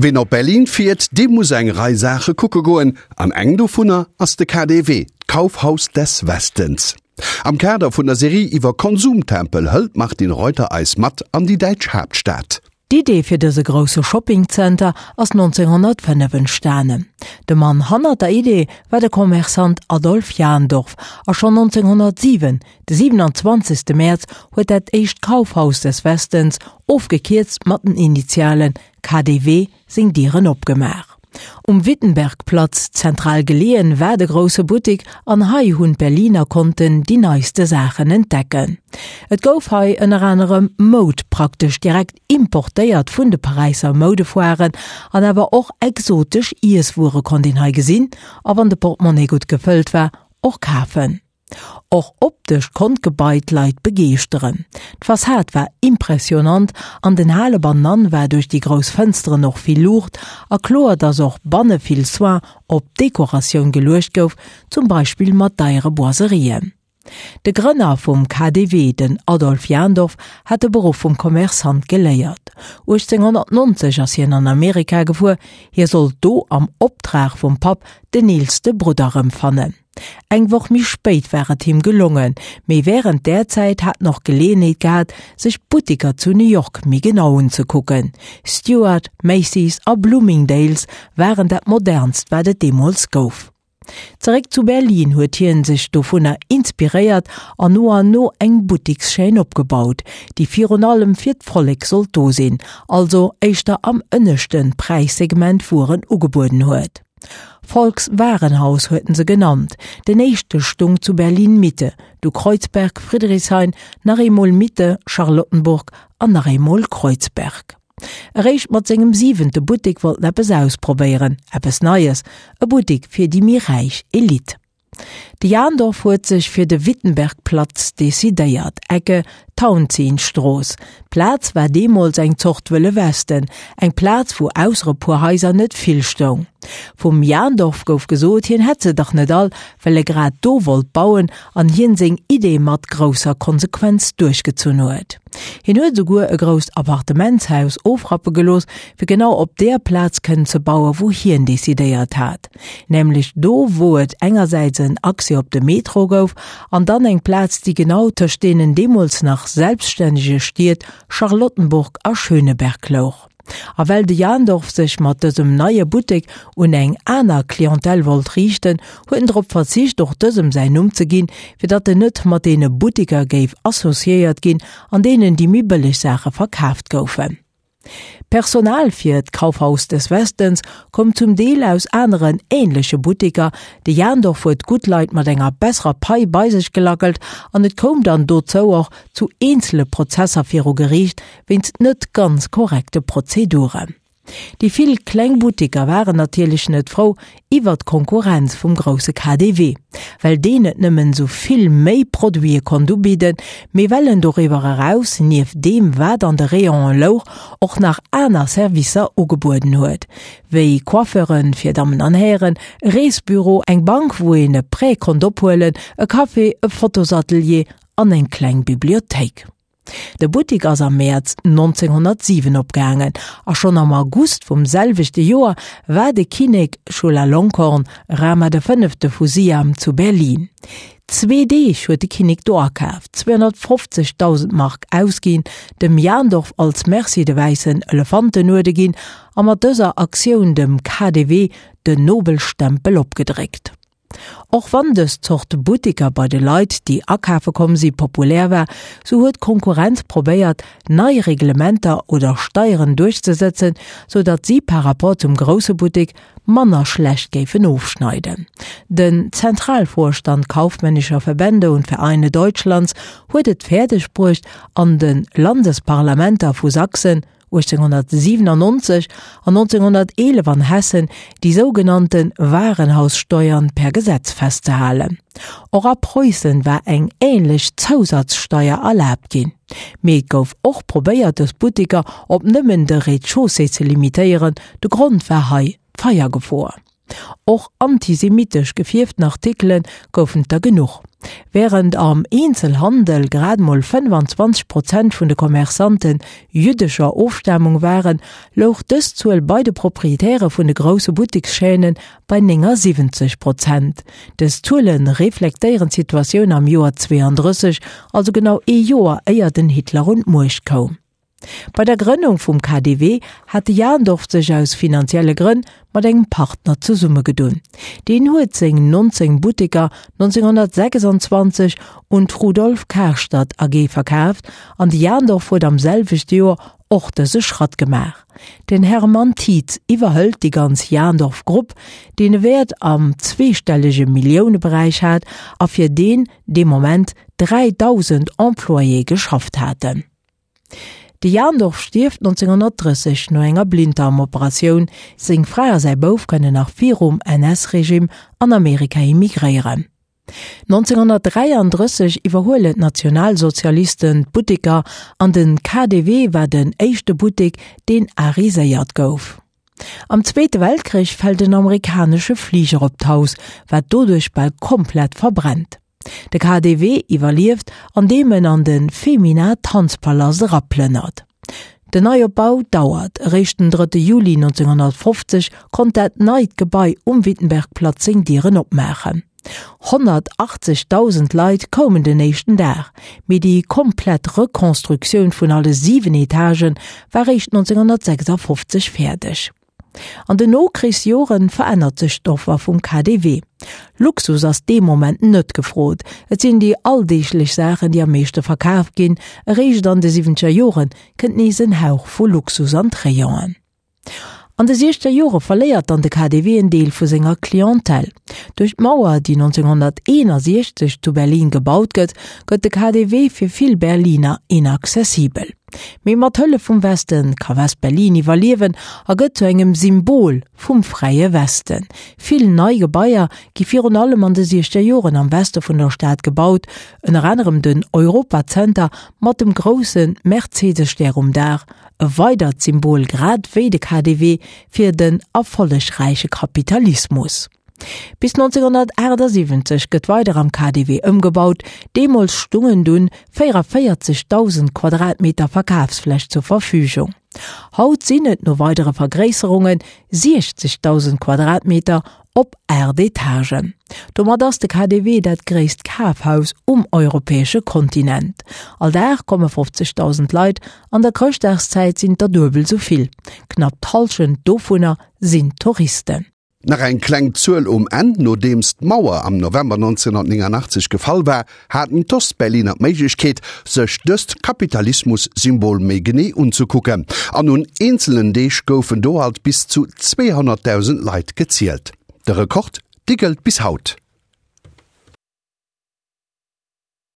Ween op Berlin fiert, dee muss eng Rei Saache kucke goen, an eng dovunner ass de KaDeWe, d'Kaufhaus des Westens. Am Kader vun der Serie iwwer Konsumtempel hëlt d'Martine Reuter eis mat an déi däitsch Haaptstad. D'Idee fir dëse grousse Shoppingzenter ass 1905 entstanen. De Mann hannert der Idee war de Commerçant Adolf Jandorf a schonn 1907, de 27. Mäerz, huet dat éischt Kaufhaus des Westens, ofgekierzt mat den Initialen KaDeWe, seng Dieren opgemaach. Um Wittenbergplatz, zentral geleeën, war de grousse Buttik an hei hunn d'Berliner konnten déi neiste Saachen entdecken. Et gouf hei ënner anerem Moud praktesch direkt importéiert vun de Paräisser Moudefoiren an awer och exotesch Iesswuere konnt een hei gesinn a wann de Portemonnaie gutt gefëllt war, och kafen. Och optesch konnt d'Gebai d'Leit begeeschteren. D'Fassad war impressionant, an den Hale bannenan war duerch déi grouss Fënsteren och vill Luucht a kloer, dass och banne vill Soin op d'Dekoratioun geluecht gouf, zum Beispill mat deiere Boiserien. De Grënner vum KaDeWe, den Adolf Jandorf, hat de Beruff vum Commerçant geléiert. 1890 ass hien an Amerika gefuer, hie sollt do am Optrag vum Papp den eelste Brudder erëmfannen. Eng Woch méi spéit war et him gelongen, mee wärend där Zäit hat en och Geleeënheet gehat, sech d'Buttiker zu New York méi genau unzekucken. Stuart, Macy's a Bloomingdale's waren dat modernst wat et deemools gouf. Zeréck zu Berlin huet hien sech dovunner inspiréiert an no an no eng Buttikschaîne opgebaut, déi virun allem fir d'Vollek sollt do sinn, also éischter am ënneschte Präissegment Wueren ugebueden huet. Volkswarenhaus huet en se genannt. Den éischte stung zu Berlin-Mitte, du Kreuzberg, Friedrichshain, nach eemol Mitte, Charlottenburg an nach eemol Kreuzberg. Eréischt mat sengem siwente Buttek wollt en eppes ausprobéieren, eppes Neies, e Buttek fir déi méi räich Elite. De Jandorf huet sech fir de Wittenbergplatz decidéiert, Ecke Tauentzienstrooss. D'Plaz war deemools eng Zort Wëlle Westen, eng Plaz wou ausser e puer Haiser net vill stoung. Vum Jandorf gouf gesot, hien hätt se dach net all, well e grad do wollt bauen an hien seng Idee mat grousser Konsequenz duerchgezunn huet. Hien huet esouguer e grousst Appartementshaus ofrappe gelooss, fir genau op där Plaz kënnen ze bauen, wou hien decidéiert hat. Nämlech do wou et engersäits en Accès op de Metro gouf an dann eng Plaz déi genau tëscht deenen deemools nach selbststännege Stied Charlottenburg a Schöneberg louch. A well de Jandorf sech mat dësem neie Buttek un eng aner Clientèle wollt riichten, huet en drop verzicht och dësem säin Numm ze ginn, fir datt en net mat deene Butteker géif associéiert ginn, an deenen déi méi bëlleg Saache verkaaft goufen. D'Personal fir d'Kaufhaus des Westens koum zum Deel aus aneren änleche Butteker, de Jandorf huet gutt Leit mat enger besserer Pai bei sech gelackelt an et koum dann dozou och zu eenzele Prozesser viru Geriicht wéinst net ganz korrekte Prozeduren. Déi vill kleng Butteker waren natierlech net frou iwwer d'Konkurrenz vum grousse KaDeWe, well deen net nëmmen esou vill méi Produite konnt ubidden, mee well en doriwwer eraus, nieft deem wat an de Rayonen louch, och nach aner Servicer ugebueden huet, wéi Coiffeuren fir Dammen an Hären, e Reesbüro, eng Bank wou een e Prêt konnt ophuelen, e Café, e Fotosatelier an eng kleng Bibliothéik. De Buttik ass am Mäerz 1907 opgaangen a schonn am August vum selwechte Joer war de Kinnek Chulalongkorn, Rama de Fënnefte vu Siam, zu Berlin. Zwee Deeg huet de Kinnek do akaaft, 250.000 Mark ausginn, dem Jandorf als Merci de wäissen Elefantenuerde ginn a mat dëser Aktioun dem KaDeWe den Nobelstempel opgedréckt. Och wann dës Zort Buttiker bei de Leit, déi akafe komm si, populär war, sou huet d'Konkurrenz probéiert, nei Reglementer oder Steieren duerchzesëtzen, sou datt si par rapport zum grousse Buttik manner schlecht géifen ofschneiden. Den Zentralvorstand kaufmännischer Verbände und Vereine Deutschlands huet et fäerdeg bruecht, an de Landesparlamenter vu Sachsen, 1897 an 1911 an Hessen déi sougenannte Warenhaussteuern per Gesetz festzehalen. Och a Preussen war eng ähnlech Zousatzsteier erlaabt ginn. Mee et gouf och probéiert dës Butteker op nëmmen de Rez-de-chaussée ze limitéieren, de Grond war hei d'Feiergefor. Och antisemitesch gefierften Artikele goufen et der genuch. Wärend am Eenzelhandel grad mol 25 Prozent vun de Commerçante jüddescher Ofstamung waren, louch dës Zuel bei de Proprietäre vun de grousse Buttekschaînen bei 79 Prozent. Dës Zuele reflektéieren d'Situatioun am Joer 32, also genau ee Joer éier den Hitler un d'Muecht koum. Bei der Grënnung vum KDW hat de Jandorf sech aus finanzielle Grënn mat engem Partner zesummegedunn. Deen huet seng 19 Butteker 1926 un d'Rudolf Karstadt AG verkaaft an de Jandorf huet am selwechte Joer och dëse Schratt gemaach. Den Hermann Tietz iwwerhëlt déi ganz Jandorf Grupp, deen e Wäert am zweestellege Milliouneberäich hat a fir deen dee Moment 3.000 Employéë geschafft haten. De Jandorf stierft 1930 no enger Blinddarmoperatioun. Seng Fra a säi Bouf kënnen nach virum NS-Regime an Amerika immigréieren. 1933 iwwerhuelen d'Nationalsozialisten d'Butteker an den KaDeWe war den éischte Buttek, deen ariséiert gouf. Am Zweete Weltkrich fält en amerikanesche Fliger op d'Haus, wat doduerch bal komplett verbrennt. De KaDeWe iwwerlieft, andeem en an de Femina Tanzpalast eraplënnert. Den Neiopbau dauert, eréischt den 3 Juli 1950 konnt dat neit Gebai um Wittenbergplatz seng Dieren opmaachen. 180.000 Leit koumen den éischten Dag, mee déi komplett Rekonstruktioun vun alle 7 Etagë war réischt 1956 fäerdeg. An den Nokrichsjoren verännert sech d'Offer vum KaDeWe. Luxus ass dee Moment net gefrot, et sinn déi alldeeglech Saachen, déi am meeschte verkaf ginn. Eréischt an de siwwenzeger Jore kënnt nees en Hauch vu Luxus an d'Rayonen. An de siechzeger Jore verléiert dann de KaDeWe en Deel vu senger Clientèle. Duerch d'Mauer, déi 1961 zu Berlin gebaut gëtt, gëtt de KaDeWe fir vill Berliner inaccessibel. Mee mat Hëllef vum Westen ka West-Berlin iwwerliewen a gëtt zu engem Symbol vum fräie Westen. Vill nei Gebaier gi virun allem an de siechzeger Joren am Weste vun der Stad gebaut, ënner anerem den Europazenter mat dem grousse Mercedes-Stär um Daach, e weidert Symbol, grad wéi de KaDeWe, fir den erfollegräiche Kapitalismus. Bis 1978 gëtt weider am KaDeWe ëmgebaut, deemools stungen dunn 44.000 Quadratmeter Verkafsfläch zur Verfügung. Haut sinn et no weidere Vergréisserunge 60.000 Quadratmeter op 8 Etagen. Domat ass de KaDeWe dat gréisst Kafhaus um europäesche Kontinent. All Dag komme 50.000 Leit, an der Chrëschtdagszäit sinn et der duebel esou vill. Knapp d'Hallschent dovunner sinn Touristen. Nach eng kleng Zuel um Enn, Nodeems d'Mauer am November 1989 gefall war, haten d'Ostberliner d'Méiglechkeet, sech dëst Kapitalismus-Symbol méi genee unzekucken. An un eenzelen Deeg goufen do alt bis zu 200.000 Leit gezielt. De Rekord, dee gëllt bis haut.